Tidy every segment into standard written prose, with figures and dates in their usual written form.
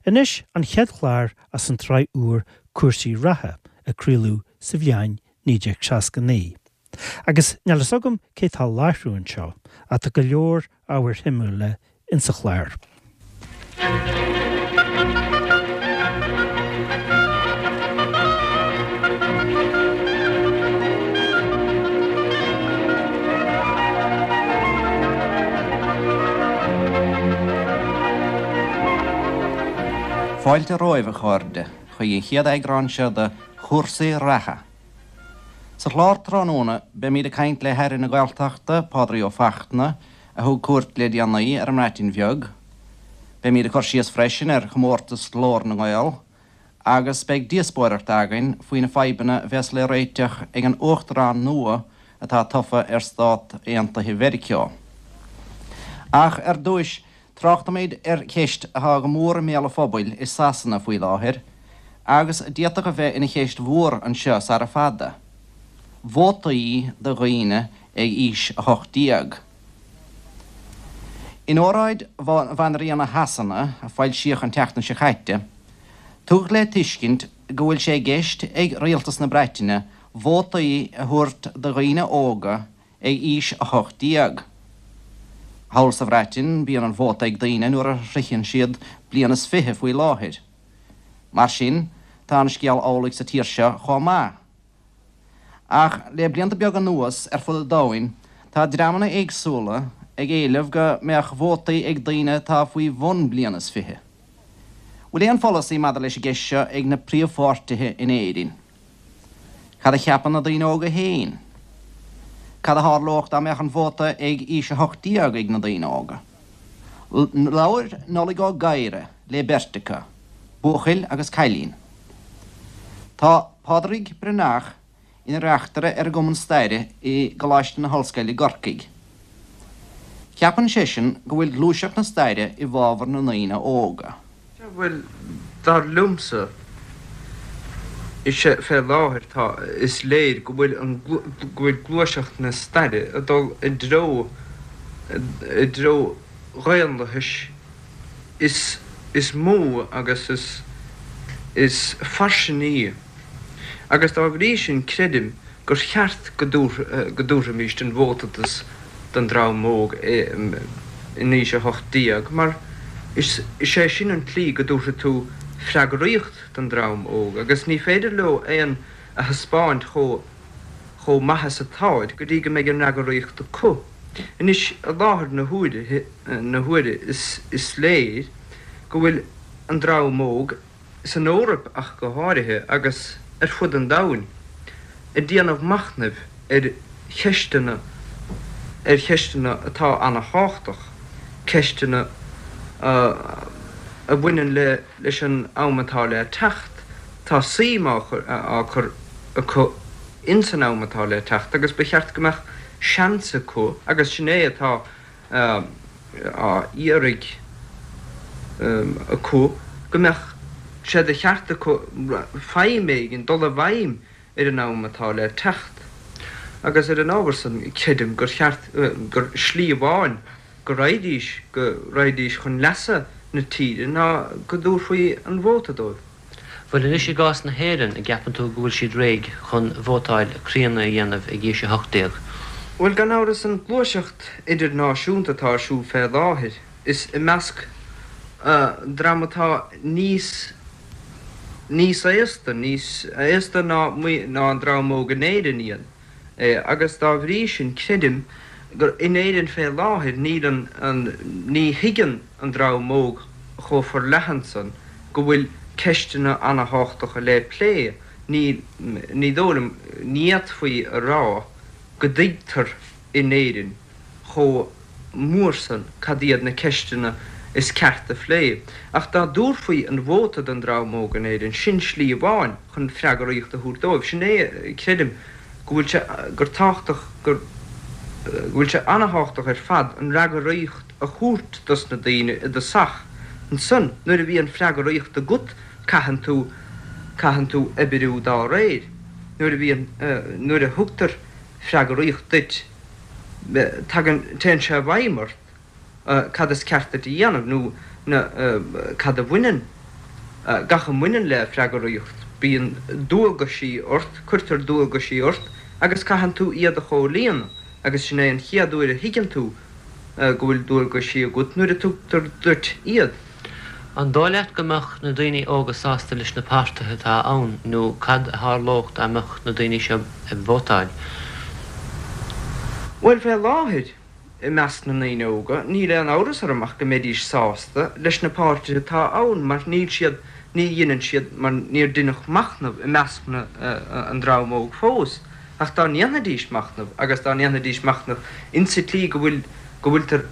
Anois an chéad chlár as an tsraith úr Cúrsaí Reatha a craoladh sa bhliain 1969. Agus níl fhios agam cé tá láithriú anseo ach tá go leor ábhair shuimiúla insa chlár. Fáilte romhaibh, a chairde, chuig an chéad eagrán seo de Chúrsaí Reatha. Sa chlár tráthnóna, beimid ag caint le hAire na Gaeltachta, Pádraig Ó Fachtna, a thug cuairt le déanaí ar an mBreatain Bheag. Beimid ag cur síos freisin ar chomórtas Ghlór na nGael agus beidh díospóireacht againn faoi na fadhbanna a bheas le réiteach ag an Uachtarán nua atá tofa ar Stát Aontaithe Mheiriceá. Ach ar dtúis, tráchtfaimid ar cheist atá go mór i mbéal an phobail i Sasana faoi láthair agus a d'fhéadfadh a bheith ina cheist mhór anseo sara fada, vótaí do dhaoine ag aois 18. In óráid Bhanríona Shasana, a foilsíodh an tseachtain seo caite, tugadh le tuiscint go bhfuil sé i gceist ag Rialtas na Breataine vótaí a thabhairt do dhaoine óga ag aois 18. Thall sa Bhreatain bíonn an vóta ag daoine nuair a shroicheann siad bliain is fiche faoi láthair. Mar sin, tá an scéal amhlaidh sa tír seo chomh maith. Ach le blianta beaga anuas, ar fud an domhain, tá dreamanna éagsúla ag éileamh go mbeadh vótaí ag daoine atá faoi bhun bliain is fiche. Bhfuil aon pholasaí maidir leis an gceist seo ag na príomhpháirtithe in Éirinn? Cad a cheapann na daoine óga féin? Cad a tharlódh dá mbeadh an vóta ag aois 18 ag na daoine óga? Labhair Nollaig Ó Gadhra le beirt acu, buachaill agus cailín. Tá Pádraig Breathnach ina reachtaire ar an gCumann Staire i gColáiste na hOllscoile i gCorcaigh. Ceapann seisean go bhfuil gluaiseacht na staire i bhfabhar na ndaoine óga. Sea, bhuel, dar liomsa, is ea, fé láthair tá, is léir go bhfuil an, go bhfuil gluaiseacht na staire ag dul i dtreo, i dtreo dhaonlathais is is mó agus is is fairsinge agus dá bhrí sin creidim gur cheart go go dtabharfaimíst an vóta dos don dream óg in aois 18 mar is is é sin an tslí go dtabharfaidh tú freagraíocht don dream óg agus ní féidir leo aon a thaispeáint chomh chomh maith is atáid go dtí go mbeidh an fhreagraíocht acu. Anois, i láthair na huaire, na huaire is is léir go bhfuil an dream óg, san Eoraip ach go háirithe, agus ar fud an domhain, ag déanamh machnaimh ar cheisteanna, ar cheisteanna atá ana-thábhachtach, ceisteanna a bhaineann le leis an am atá le teacht. Tá suim á á cur acu ins an am atá le teacht agus ba cheart go mbeadh seans acu, agus sin é atá á iarraidh acu, go mbeadh sé de cheart acu feidhm éigin, dul i bhfeidhm ar an am atá le teacht. Agus ar an ábhar san, creidim gur cheart, gur slí amháin go raghaidís, go raghaidís chun leasa na tíre ná go dtabharfaí an vóta dóibh. Bhuel anois i gcás na hÉireann, an gceapann tú go bhfuil siad réidh chun vótáil críonna a dhéanamh ag aois 18? Bhuel gan amhras an gluaiseacht idirnáisiúnta atá ar siúl fé láthair, is i measc dream atá níos níos aosta, níos aosta ná ná an dream óg in Éirinn iad. é agus dá bhrí sin creidim gur in Éirinn fé láthair níl an an ní thuigeann an dream óg chomh forleathan san go bhfuil ceisteanna ana-thábhachtacha le plé. Ní ní dóigh liom ní fhéadfaí a rá go dtuigtear in Éirinn chomh mór san cad iad na ceisteanna is ceart a phlé. Ach dá dtabharfaí an vóta don dream óg in Éirinn, sin slí amháin chun freagraíocht a thabhairt dóibh. Sin é, creidim, go bhfuil sé, gur tábhachtach, gur, go bhfuil sé ana-thábhachtach ar fad an fhreagraíocht a thabhairt dos na daoine i dtosach. Ansan, nuair a bhíonn freagraíocht agat, caitheann tú, caitheann tú oibriú dá réir. Nuair a bhíonn, nuair a thugtar freagraíocht duit, tagann, téann sé i bhfeidhm ort cad is ceart duit a dhéanamh nó na, cad a bhaineann. Gach a mbaineann le freagraíocht, bíonn dualgaisí ort, cuirtear dualgaisí ort agus caitheann tú iad a chomhlíonadh agus sin é an chéad uair a thuigeann tú go bhfuil dualgaisí agat, nuair a tugtar duit iad. An dóigh leat go mbeadh na daoine óga sásta leis na páirtithe atá ann nó cad a tharlódh dá mbeadh na daoine seo ag vótáil? Bhuel, fé láthair, i measc na ndaoine óga, níl aon amhras orm ach go mbeidís sásta leis na páirtithe atá ann mar níl siad, ní dheineann siad, mar níor deineadh machnamh i measc na, an dream óg fós. Ach dá ndéanfaidís machnamh, agus dá ndéanfaidís machnamh insa tslí go bhfuil, go bhfuiltear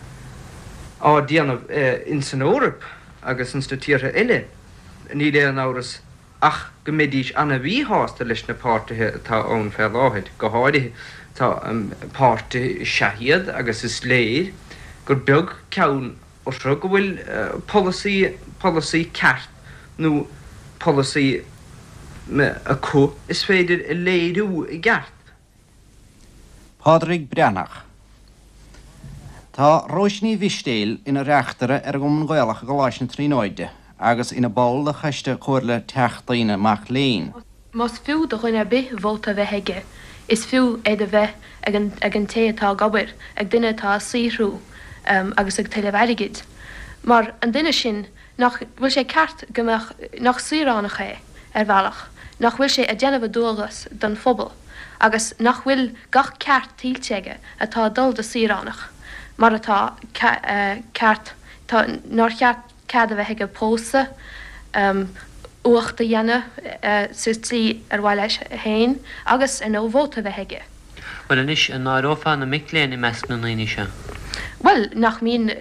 á déanamh ins an Eoraip agus ins na tíortha eile, níl aon amhras ach go mbeidís ana-mhíshásta leis na páirtithe atá ann fé láthair. Go háirithe, tá páirtithe is ea iad agus is léir gur beag ceann orthu go bhfuil polasaí, polasaí ceart nó polasaí acu is féidir a léiriú i gceart. Pádraig Breathnach. Tá Róise Ní Mhistéil ina reachtaire ar an gCumann Gaelach i gColáiste na Tríonóide agus ina ball de Choiste Comhairle Teachtaí na Mac Léinn. Más fiú do dhuine ar bith vóta a bheith aige, is fiú é do bheith ag an ag an té atá ag obair, ag duine atá ag saothrú agus ag tuilleamh airgid. Mar an duine sin, nach bhfuil sé ceart go mbeadh, nach saoránach é, ar bhealach, nach bhfuil sé ag déanamh a dualgas don phobal agus nach bhfuil gach ceart tuillte aige atá ag dul do saoránach, mar atá, ceart, tá, nár cheart cead a bheith aige pósadh, uacht a dhéanamh sa tslí ar mhaith leis féin agus, ar ndóigh, vóta a bheith aige. Bhuel anois, an n-áireofá na mic léinn i measc na ndaoine seo? Bhuel, nach mbíonn,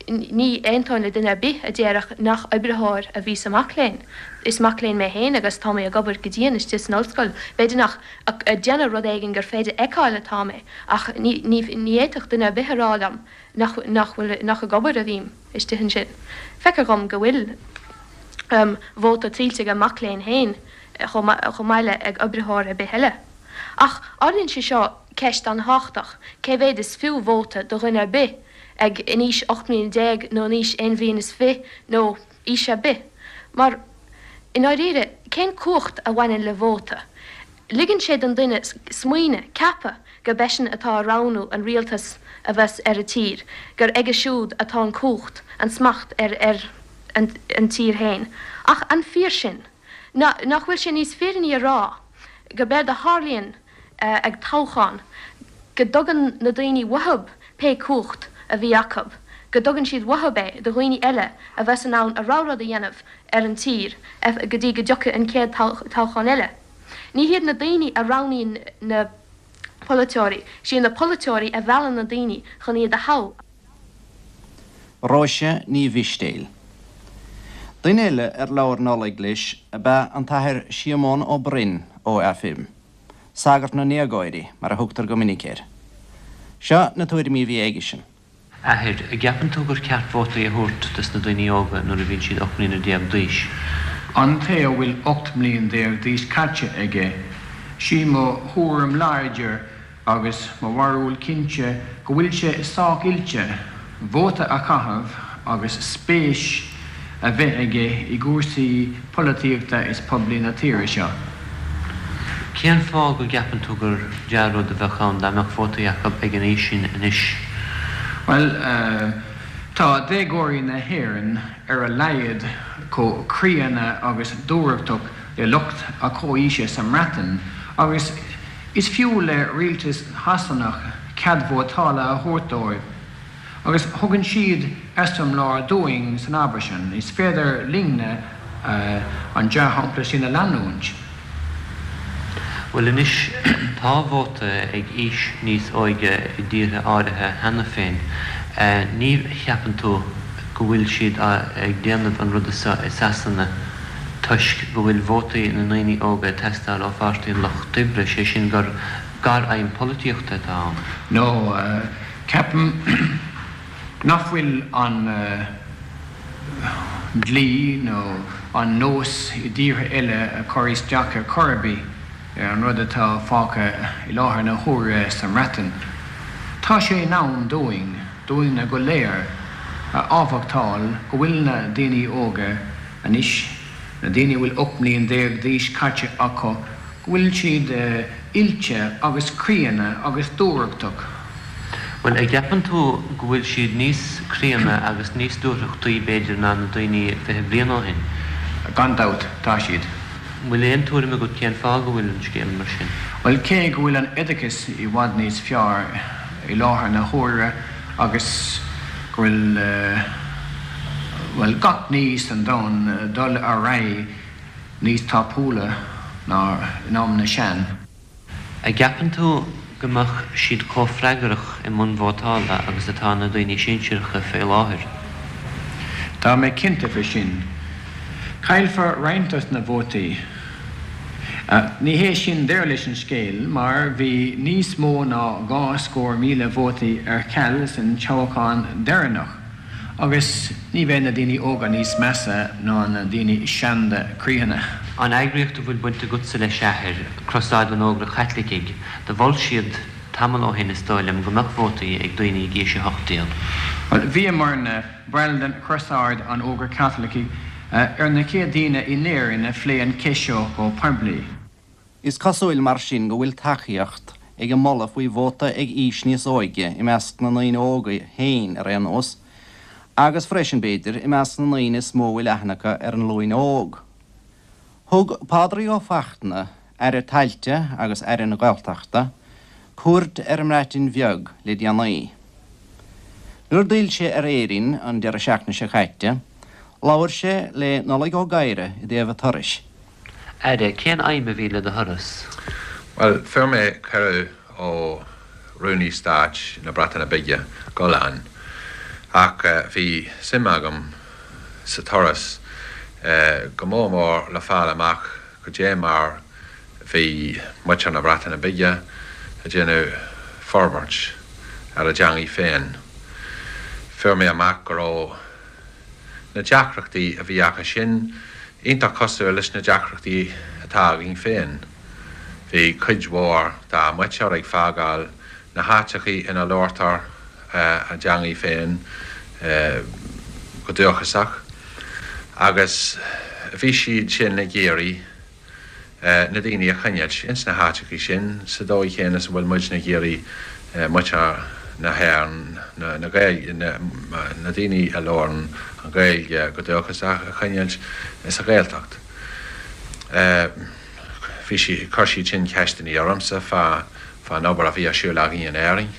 ní aontóinn le duine ar bith a déarfadh nach oibritheoir a bhí sa mac léinn. Is mac léinn mé féin agus tá mé ag obair go dian istigh san ollscoil. B'fhéidir nach ag déanamh rud éigin gur féidir fheiceáil atá mé, ach ní, ní, ní fhéadfadh duine ar bith a rá liom nach, nach bhfuil, nach ag obair a bhím istigh ansin. Feictear dhom go bhfuil vóta tuillte ag an mac léinn féin chomh maith, chomh maith le ag oibritheoir ar bith eile. Ach ardaíonn sé seo ceist an-thábhachtach, cé mhéad is fiú vóta do dhuine ar bith ag in aois 18 mbliana nó in aois aon bhliain is fi nó aois ar bith? Mar, i ndáiríre, cén cumhacht a bhaineann le vóta? Ligeann sé don duine smaoineamh, ceapadh gurb eisean atá ag roghnú an rialtas a bheas ar an tír, gur aige siúd atá an cumhacht, an smacht ar ar an tír féin. Ach an fíor sin? Nach bhfuil sé níos fírinní a rá gurb éard a tharlaíonn ag toghchán, go dtugann na daoine uathub pé cumhacht a bhí acu, go dtugann siad uathub é do dhaoine eile a bheas in ann a rogha rud a dhéanamh ar an tír go dtí go dtiocfaidh an chéad toghchán eile. Ní hiad na daoine a roghnaíonn na polaiteoirí, is iad na polaiteoirí a mheallann na daoine chun iad a thoghadh. Róise Ní Mhistéil. Duine eile ar labhair Nollaig leis ab ea an tAthair Síomón Ó Broin OFM, Sagart na nDéagóirí mar a thugtar go minic air. Seo na tuairimí a bhí aigesean. Athair, an gceapann tú gur ceart vótaí a thabhairt dos na daoine óga nuair a bhíonn siad 18 mbliana d'aois? An té a bhfuil 18 mbliain d'aois caite aige, sí mo thuairim láidir Agus mo bharúil cinnte go bhfuil sé sách oilte vóta a chaitheamh agus spéis a bheith aige i gcúrsaí polaitíochta is poiblí na tíre seo. Cén fáth go gceapann tú gur dea-rud a bheadh ann dá mbeadh vótaí acu ag an aois sin anois? Bhuel, tá déagóirí na hÉireann ar a laghad chomh críonna agus dúthrachtach le lucht a comhaoise sa mBreatain agus Is fiú le rialtas Shasanach cead vótála a thabhairt dóibh, agus thugann siad eiseamláir dúinn san ábhar sin. Is féidir linne an dea-shampla sin a leanúint. Bhuel anois, tá vóta ag aois níos óige i dtíortha áirithe cheana féin. Ní cheapann tú go bhfuil siad ag déanamh an ruda seo i Sasana? toisc go bhfuil vótaí na ndaoine óga ag teastáil ó Pháirtí an Lucht Oibre, sé sin gur gar-aidhm polaitíochta atá ann. No, ceapaim nach bhfuil an dlí nó an nós i dtíortha eile ag cur isteach ar chor ar bith ar an rud atá fágtha i láthair na huaire sa mBreatain. Tá sé in am dúinn, dúinne go léir, a admhachtáil go bhfuil na daoine óga anois. na daoine a bhfuil 18 mbliain d'aois caite acu, go bhfuil siad oilte agus críonna agus dúthrachtach. Bhuel, a' gceapann tú go bhfuil siad níos críonna agus níos dúthrachtaí, b'fhéidir, ná na daoine 20 bliain ó shin? Gan dabht, tá siad. An bhfuil aon tuairim agat cén fáth go bhfuil an scéal mar sin? Bhuel, cé go bhfuil an oideachas i bhfad níos fearr i láthair na huaire agus go bhfuil, bhuel, gach ní san domhan dul ar aghaidh níos tapúla ná in am na sean. A gceapann tú go mbeadh siad chomh freagrach i mbun vótála agus atá na daoine sinsearacha fé láthair? Tá mé cinnte fé sin. Caillfear roinnt dos na vótaí. Ní hé sin deireadh leis an scéal mar bhí níos mó ná 200,000 vótaí ar ceal san toghchán deireanach. Agus ní bheidh na daoine óga níos measa ná na daoine seanda críonna. An eagraíocht a bhfuil baint agatsa leis, a athair, Crosáid an Ógra Chaitlicigh, do mhol siad tamall ó shin, is dóigh liom, go mbeadh vótaí ag daoine ag aois 18. Bhuel, bhíomarna, baill den Chrosáid an Ógra Chaitlicigh, ar na chéad daoine in Éirinn a phléigh an cheist seo go poiblí. Is cosúil mar sin go bhfuil tacaíocht ag an moladh faoi vóta ag aois níos óige i measc na ndaoine óga féin ar aon nós, agus freisin, b'fhéidir, i measc na ndaoine is mó a bhfuil aithne acu ar an nglúin óg. Thug Pádraig Ó Fachtna, Aire Tailte agus Aire na Gaeltachta, cuairt ar an mBreatain Bheag le déanaí. Nuair d'fhill sé ar Éirinn an deireadh seachtaine seo caite, labhair sé le Nollaig Ó Gadhra i dtaobh a turais. Aire, cén aidhm a bhí le do thuras? Bhuel, fuair mé cuireadh ó Rúnaí Stáit na Breataine Bige dul ann, ach bhí suim agam sa turas go mór mór le fáil amach goidé mar bhí muintir na Breataine Bige ag déanamh forbairt ar a dteangaidh féin. Fuair mé amach go raibh. Na deacrachtaí a bhí acu sin iontach cosúil leis na deacrachtaí atá againn féin. Bhí cuid mhór dá muintir ag fágáil na háiteachaí ina labhartar a dteangaidh féin go dúchasach agus bhí siad sin ag iarraidh na daoine a choinneáilt ins na háiteachaí sin sa dóigh chéanna is a bhfuil muidne ag iarraidh muintir na hÉireann, na Gaeilge, na daoine a labhrann an Ghaeilge go dúchasach a choinneáilt sa Ghaeltacht. Bhí sí, chuir siad sin ceisteannaí ormsa fá, fán obair a bhí ar siúl againn in Éirinn.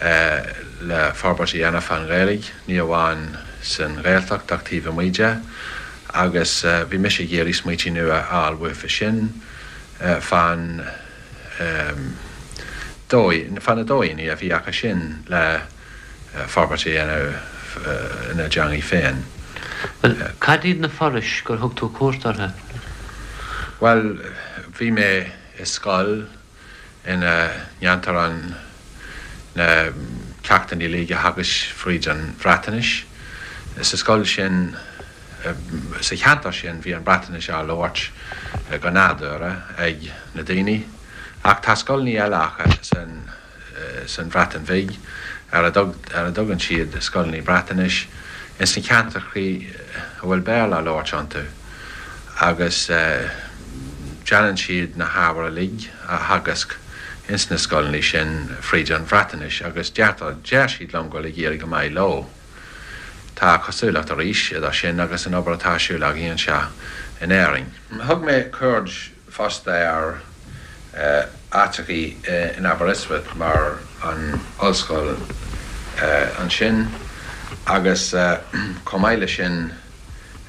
le forbairt a dhéanamh fán Ghaeilge, ní amháin san Ghaeltacht ach taobh amuigh de, agus bhí mise ag iarraidh smaoití nua a fháil uathu sin fán dóigh, fá na dóigheanna a bhí acu sin le forbairt a dhéanamh ina dteangaidh féin. Bhuel, cad iad na forais gur thug tú cuairt orthu? Bhuel, bhí mé i scoil ina ndéantar an na ceachtanna uilig a theagasc fríd an Bhreatnais. Sa scoil sin, sa cheantar sin, bhí an Bhreatnais á labhairt go nádúrtha ag na daoine, ach tá scoileanna eile acu san. san Bhreatain Bhig, ar a dtugann siad scoileanna Breatnaise, ins na ceantrachaí a bhfuil Béarla á labhairt iontu, agus déanann siad na hábhair uilig a theagasc ins na scoileanna sin fríd an Bhreatnais, agus deirtear, deir siad liom go bhfuil ag éirí go maith leo. Tá cosúlacht arís idir sin agus an obair atá ar siúl againn anseo in Éirinn. Thug mé cuairt fosta ar áiteachaí in Aberystwyth mar an ollscoil ansin agus chomh maith leis sin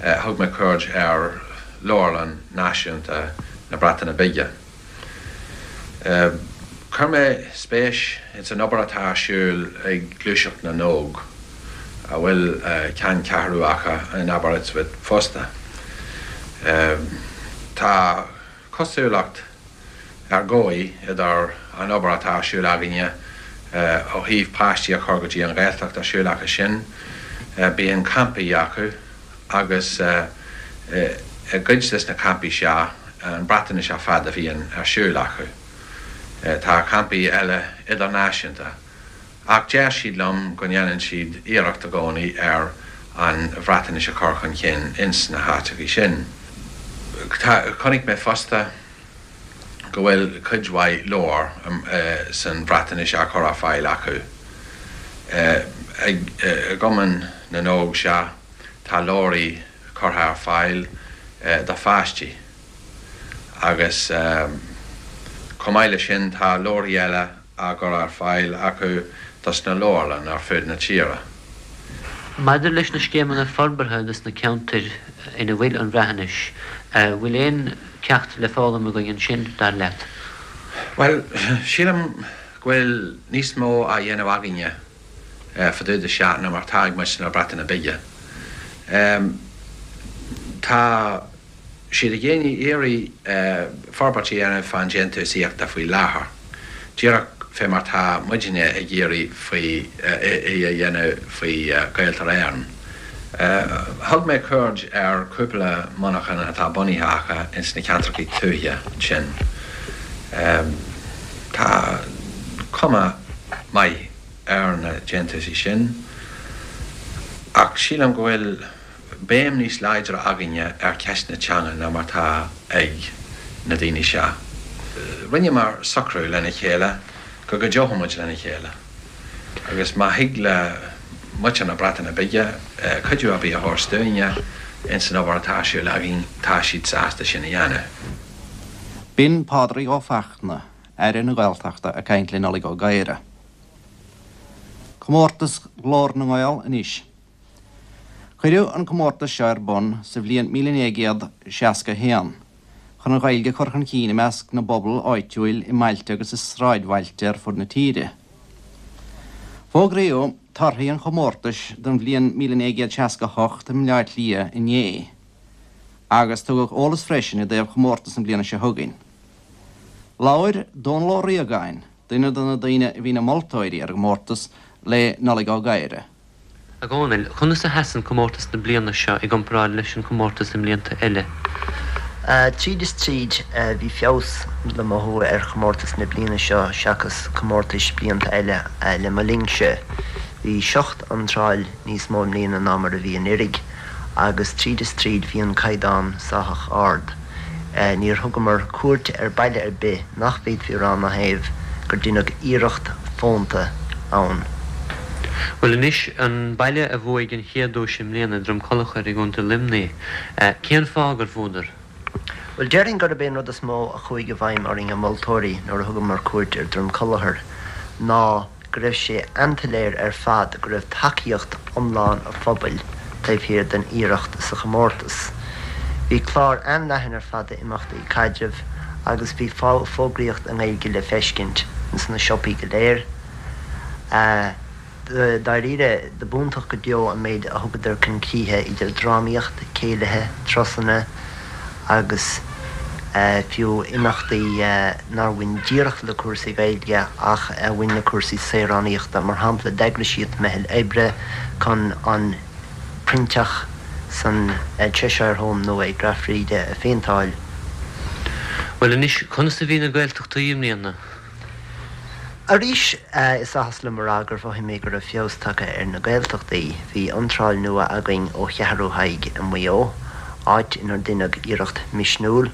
thug mé cuairt ar Leabharlann Náisiúnta na Breataine Bige. Chuir mé spéis ins an obair atá ar siúl ag Gluaiseacht na nÓg, a bhfuil ceanncheathrú acu in Aberystwyth fosta. Tá cosúlacht ar dhóigh idir an obair atá ar siúl againne ó thaobh páistí a chur go dtí an Ghaeltacht ar siúl acu sin. Bíonn campaí acu agus i gcuid des na campaí seo an Bhreatnais ar fad a bhíonn ar siúl acu. Tá campaí eile idirnáisiúnta. Ach deir siad liom go ndéanann siad iarracht i gcónaí ar. an Bhreatnais a chur chun cinn ins na háiteachaí sin. Tá, chonaic mé fosta go bhfuil cuid mhaith leabhar san Bhreatnais á chur ar fáil acu. I gCumann na nÓg, sea, tá leabhraí curtha ar fáil do pháistí agus chomh maith leis sin tá leabharthaí eile á gcur ar fáil acu dos na leabharlanna ar fud na tíre. Maidir leis na scéimeanna forbartha dos na ceantair ina bhfuil an Bhreathnais, bhfuil aon ceacht le foghlaim againn ansin, dar leat? Bhuel, sílim go bhfuil níos mó á dhéanamh againne fá dtaobh de seo ná mar atá ag muintir na Breataine Bige. Tá. siad ag iarraidh forbairt a dhéanamh fán déantúsaíochta faoi láthair, díreach fé mar tá muidinne ag iarraidh faoi í a dhéanamh faoi Ghaeltarra Éireann. Thug mé cuairt ar chúpla monarchan atá bunaithe acu ins na ceantrachaí tuaithe sin. Tá cuma maith ar na déantúsaí sin ach sílim go bhfuil béim níos láidre againne ar cheist na teanga ná mar tá ag na daoine seo. Rinneamar socrú lena chéile go gcuideoidh muid lena chéile agus má thig le muintir na Breataine Bige cuidiú ar bith a thabhairt dúinne ins an obair atá ar siúl againn, tá siad sásta sin a dhéanamh. B'in Pádraig Ó Fachtna, Aire na Gaeltachta ag caint le Nollaig Ó Gadhra. Comórtas Ghlór na nGael anois. Cuireadh an comórtas seo ar bun sa bhliain 1961 chun an Ghaeilge a chur chun cinn i measc na bpobal áitiúil i mbailte agus i sráidbhailte ar fud na tíre. Fógraíodh torthaí an chomórtais don bhliain 1968 i mBleá Cliath inné agus tugadh eolas freisin i dtaobh chomórtas na bliana seo chugainn. Labhair Dónal Ó Riagáin, duine de na daoine a bhí ina moltóirí ar an gcomórtas, le Nollaig Ó Gadhra. A Dhónaill, conas a sheasann comórtas na bliana seo i gcomparáid leis an chomórtas i mblianta eile? Tríd is tríd, bhí feabhas le mothú ar chomórtas na bliana seo seachas comórtais blianta eile le mo linnse. Bhí seacht iontráil níos mó i mbliana ná mar a bhí anuiridh agus tríd is tríd bhí an caighdeán sách ard. Níor thugamar cuairt ar baile ar bith nach bhféadfaí a rá ina thaobh gur deineadh iarracht fónta ann. Bhuel anois, an baile a bhuaigh an chéad duais i mbliana, Droim Collachair i gContae Luimnigh, cén fáth gur bhuadar? Bhuel, déarfainn gurb é an rud is mó a chuaigh i bhfeidhm orainn, an moltóirí, nuair a thugamar cuairt ar Droim Collachair ná go raibh sé an-tsoiléir ar fad go raibh tacaíocht iomlán an phobail taobh thiar den iarracht sa chomórtas. Bhí clár an-leathan ar fad d'imeachtaí caidrimh agus bhí fógraíocht i nGaeilge le feiscint ins na siopaí go léir. Dáiríre, do b'iontach go deo an méid a thugadar chun críche idir drámaíocht, céilithe, turasanna agus fiú imeachtaí nár bhain díreach le cúrsaí Gaeilge ach a bhain le cúrsaí saoránaíochta. Mar shampla, d'eagraigh siad meitheal oibre chun an proinnteach san Cheshire Home nua ag Rath Bhríde a phéinteáil. Bhuel anois, conas a bhí na Gaeltachtaí i mbliana? Arís, is áthas liom a rá gur mhothaigh mé go raibh feabhas tagtha ar na Gaeltachtaí. Bhí iontráil nua againn ó Cheathrú Thaidhg i Maigh Eo, áit inar deineadh iarracht misniúil,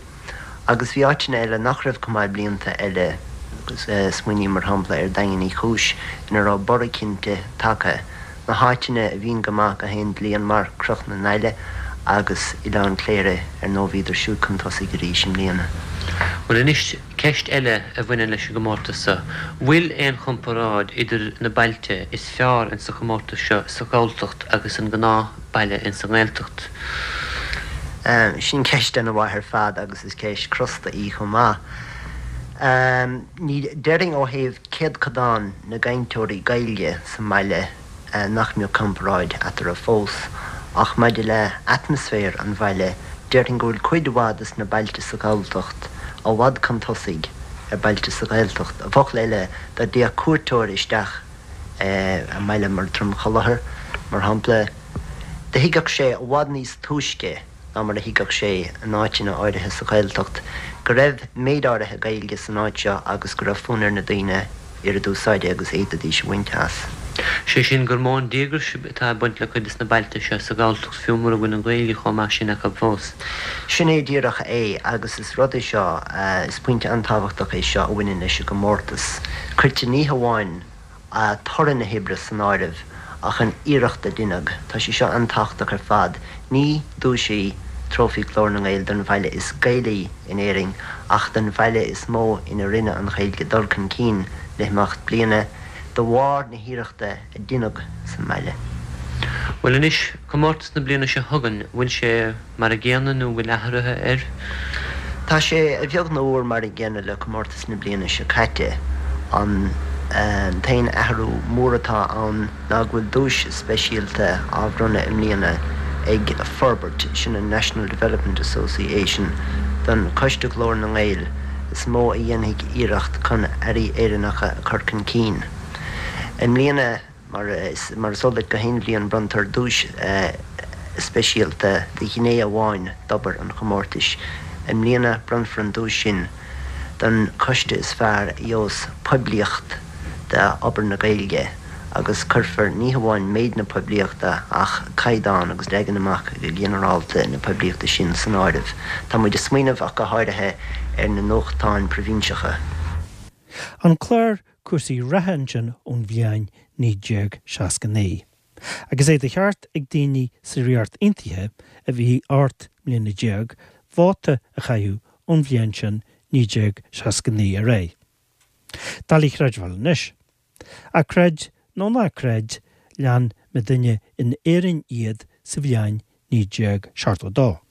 agus bhí áiteanna eile nach raibh chomh maith blianta eile, smaoiním mar shampla ar Daingean Uí Chúis, ina raibh borradh cinnte tagtha. Na háiteanna a bhíonn go maith gach aon bhliain mar Cnoc na nAille agus Oileán Cléire, ar ndóigh bhíodar siúd chun tosaigh arís i mbliana. Bhuel anois, ceist eile a bhaineann leis an gcomórtas seo. Bhfuil aon chomparáid idir na bailte is fearr insa chomórtas seo sa Ghalltacht agus an gnáth baile insa nGaeltacht? Sin ceist ana-mhaith ar fad agus is ceist crosta í chomh maith. Ní déarfainn ó thaobh céadchodán na gcainteoirí Gaeilge sa mbaile nach mbeadh comparáid eatarthu fós, ach maidir le atmaisféar an bhaile, déarfainn go bhfuil cuid mhaith des na bailte sa Ghalltacht i bhfad chun tosaigh ar bailte sa Ghaeltacht. I bhfocail eile, dá dtéadh cuairteoir isteach i mbaile mar Droim Chollachair, mar shampla, do thuigfeadh sé i bhfad níos túisce ná mar a thuigfeadh sé in áiteanna áirithe sa Ghaeltacht go raibh méid áirithe Gaeilge san áit seo agus go raibh fonn ar na daoine oiread úsáide agus a fhéadfaidís a bhaint as. Sé sin gur mó an díograis atá ag baint le cuid de na bailte seo sa Ghalltacht fiú mura bhfuil an Ghaeilge chomh maith sin acu fós. Sin é díreach é agus is rud é seo, is pointe an-tábhachtach é seo a bhaineann leis an gcomórtas. Cuirtear ní hamháin toradh na hoibre san áireamh ach an iarracht a deineadh. Tá sé seo an-tábhachtach ar fad. Ní duais í Trófaí Ghlór na nGael don bhaile is Gaelaí in Éirinn ach don bhaile is mó ina rinne an Ghaeilge dul chun cinn le himeacht bliana de bharr na hiarrachta a deineadh sa mbaile. Bhuel anois, comórtas na bliana seo chugainn, bhfuil sé mar a gcéanna nó bhfuil athruithe air? Tá sé a bheag nó a mhór mar an gcéanna le comórtas na bliana seo caite. An t-aon athrú mór atá ann ná go bhfuil duais speisialta á bhronnadh i mbliana ag Forbairt, sin an National Development Association, don Choiste Ghlór na nGael is mó a dhéanfaidh iarracht chun earraí Éireannacha a chur chun cinn. I mbliana, mar is eol duit, gach aon bhliain bronntar duais speisialta do ghné amháin d'obair an chomórtais. I mbliana bronnfar an duais sin don choiste is fearr a gheobhas poiblíocht d'obair na Gaeilge agus cuirfear ní hamháin méid na poiblíochta ach caighdeán agus leagan amach go ginearálta na poiblíochta sin san áireamh. Tá muid ag smaoineamh ach go háirithe ar na nuachtáin proibhinseacha. An clár cúrsaí reatha ansin ón bhliain 1969. Agus é de cheart ag daoine sa Ríocht Aontaithe a bhí 18 mbliana vóta a chaitheamh ón bhliain sin 1969 ar aghaidh. Doiligh a chreidbheáil anois. Ach creid nó ná creid, lean muidinne in Éirinn iad sa bhliain 1972.